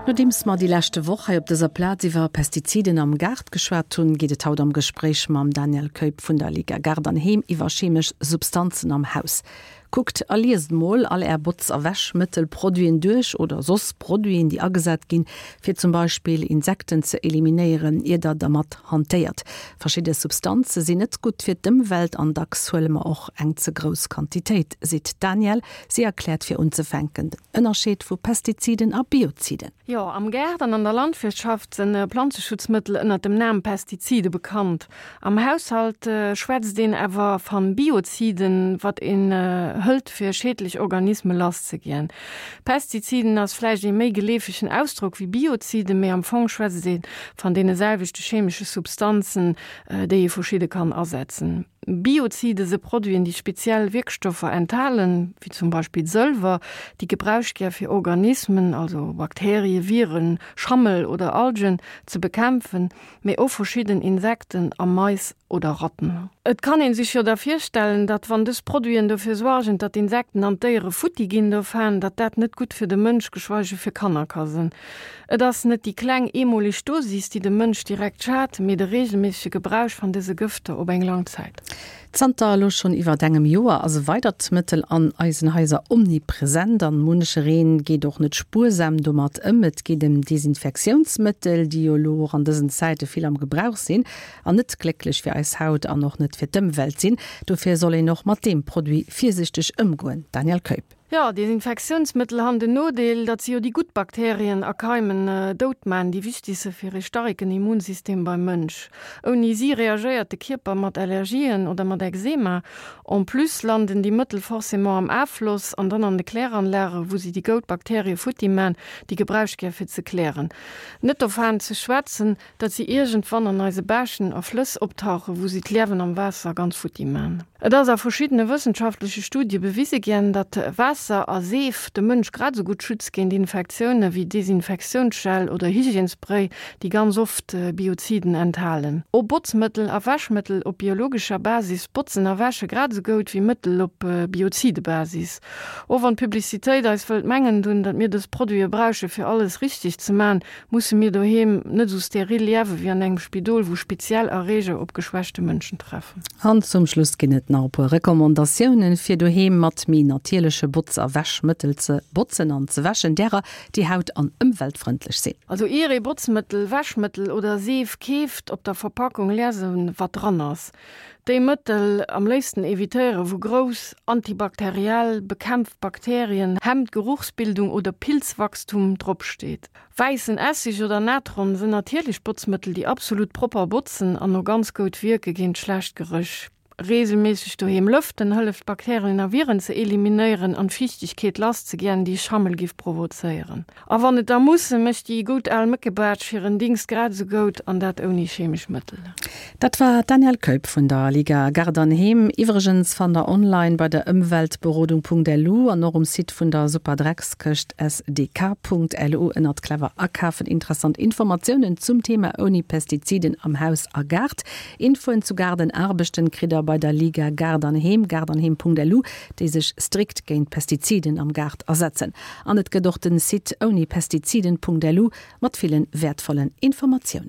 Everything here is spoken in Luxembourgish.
Nodeems mer déi leschte Woch hei op dëser Plaz iwwer Pestiziden am Gaart geschwat hunn, geet et haut am Gespréich mam Daniel Keup vun der Liga Gaart an Heem iwwer chemesch Substanzen am Haus. Kuckt a liest mol all är Botz a Wäschmëttelproduiten duerch oder soss Produiten, déi agesat ginn, fir zum Beispill Insekten ze eliminéieren, ier der dermat hantéiert. Verschidde Substanze sinn net gutt fir d'Ëmwelt an dacks huele mer och eng ze grouss Quantitéit, seet d'Danièle. Si erkläert fir unzefänken den Ënnerscheed vu Pestiziden a Bioziden. Jo, am Gaart an an der Landwirtschaft sinn Planzeschutzmëttel ënnert dem Nam Pestizide bekannt. Am Haushalt schwätzt een awer van Bioziden, wat een hëlt fir schädlich Organisme lass ze jiän. Pestiziden ass vläicht een méi geleefegen Ausdrock wéi Bioziden, mee am Fong schwätzt een van deene selwechte chemische Substanzen, déi ee verschidde kann asetzen. Biozide se Produiten, déi speziell Wierkstoffer enthalen, wéi zum Beispill Sëlwer, déi gebraucht gär fir Organismen, also Bakterien, Viren, Schammel oder Algen, ze bekämpfen, mee och verschidden Insekten a Mais oder Ratten. Et kann een sech jo da virstellen, datt wann dës Produiten dofir suargen, datt d'Insekten an d'Déiere futti ginn dovaan, datt dat net gutt fir de Mënsch, geschweige fir Kanner ka sënn. Et ass net déi kleng eemoleg Dosis, déi dem Mënsch direkt schadt, mee de reegelméissege Gebrauch van dëse Gëfter op eng lang Zäit. Zanter elo schonn iwwert engem Joer ass e weidert Mëttel an eisen Haiser omnipresent an munchereen geet och net spuersam domat ëm. Et geet ëm Desinfektiounsmëttel, déi jo elo och an dësen Zäite vill am Gebrauch sinn an net glécklech fir eis Haut an och net fir d'Ëmwelt sinn. Dofir soll een och mat deem Produit virsichteg ëmgoen. Danièle Keup. Jo, Desinfektiounsmëttel han den Nodeel, datt si jo déi gutt Bakterien a Keimen dout maan, déi wichtig se fir ee starken Immunsystem beim Mënsch. Ouni si reagéiert de Kierper mat Allergien oder mat Ekzema. En plus landen déi Mëttel forcément am Affloss an dann an de Kläranlagen, wou si déi goud Bakterie futti maan, déi gebraucht gär fir ze klären. Net dovaan ze schwätzen, datt si iergendwann an eise Bächen a Flëss optauchen, wou si d'Liewen am Waasser ganz futti man. Et ass a verschiddene wëssenschaftleche Studie bewise ginn, datt Waasser a Seef de Mënsch grad esou gutt schützt géint Infektioune wéi Desinfektiounsgel oder Hygiènesspray, déi ganz oft Bioziden enthalen. Och Botzmëttel a Wäschmëttel op biologescher Basis botzen a wäsche grad esou goud wéi Mëttel op Biozide-Basis. Och wann d'Publicitéit eis wëllt mengen dunn, datt mir dës Produite brauche fir alles richteg ze man, Musse mir doheem net esou steril liewe wéi an engem Spidol, wou speziell Erreeger op geschwächte Mënschen treffen? An zum Schluss ginn et nach e puer Recommandatiounen, fir doheem mat méi natierleche Botz a Wäschmëttel ze botzen an ze wäschen, därer, déi haut an ëmweltfrëndlech sinn. Also ier ee Botzmëttel, Wäschmëttel oder Seef keeft, op der Verpackung liesen, wat dran ass. Déi Mëttel am léifsten evitéieren, wou grouss, antibakteriell, bekämpft Bakterien, hemmt Geruchsbildung oder Pilzwachstum drop steet. Wäissen Essig oder Natron sënn natierlech Botzmëttel, déi absolut propper botzen an o ganz goud wierke géint schlecht Geréch. Reegelméisseg doheem lëften hëlleft Bakterien a Viren ze eliminéieren an d'Fiichtegkeet lass ze giän, déi Schammel giff provozéieren. A wann et da muss, mécht déi goud al Méckebaatsch hiren Dingst grad esou goud, an dat ouni chemesch Mëttel. Dat war d'Danièle Keup vun der Liga Gaart an Heem. Iwwregens fannt der online bei der Ëmweltberodung.lu an och um Site vun der Superdreckskëscht sdk.lu ënnert Clever akafen interessant Informatiounen zum Thema ouni Pestiziden am Haus a Gaart. Infoen zu Gaardenaarbechten kritt der bei der Liga Gaart an Heem, gaartanheem.lu, déi sech strikt géint Pestiziden am Gaart asetzen. An et gëtt och den Site ounipestiziden.lu mat villen wäertvollen Informatiounen.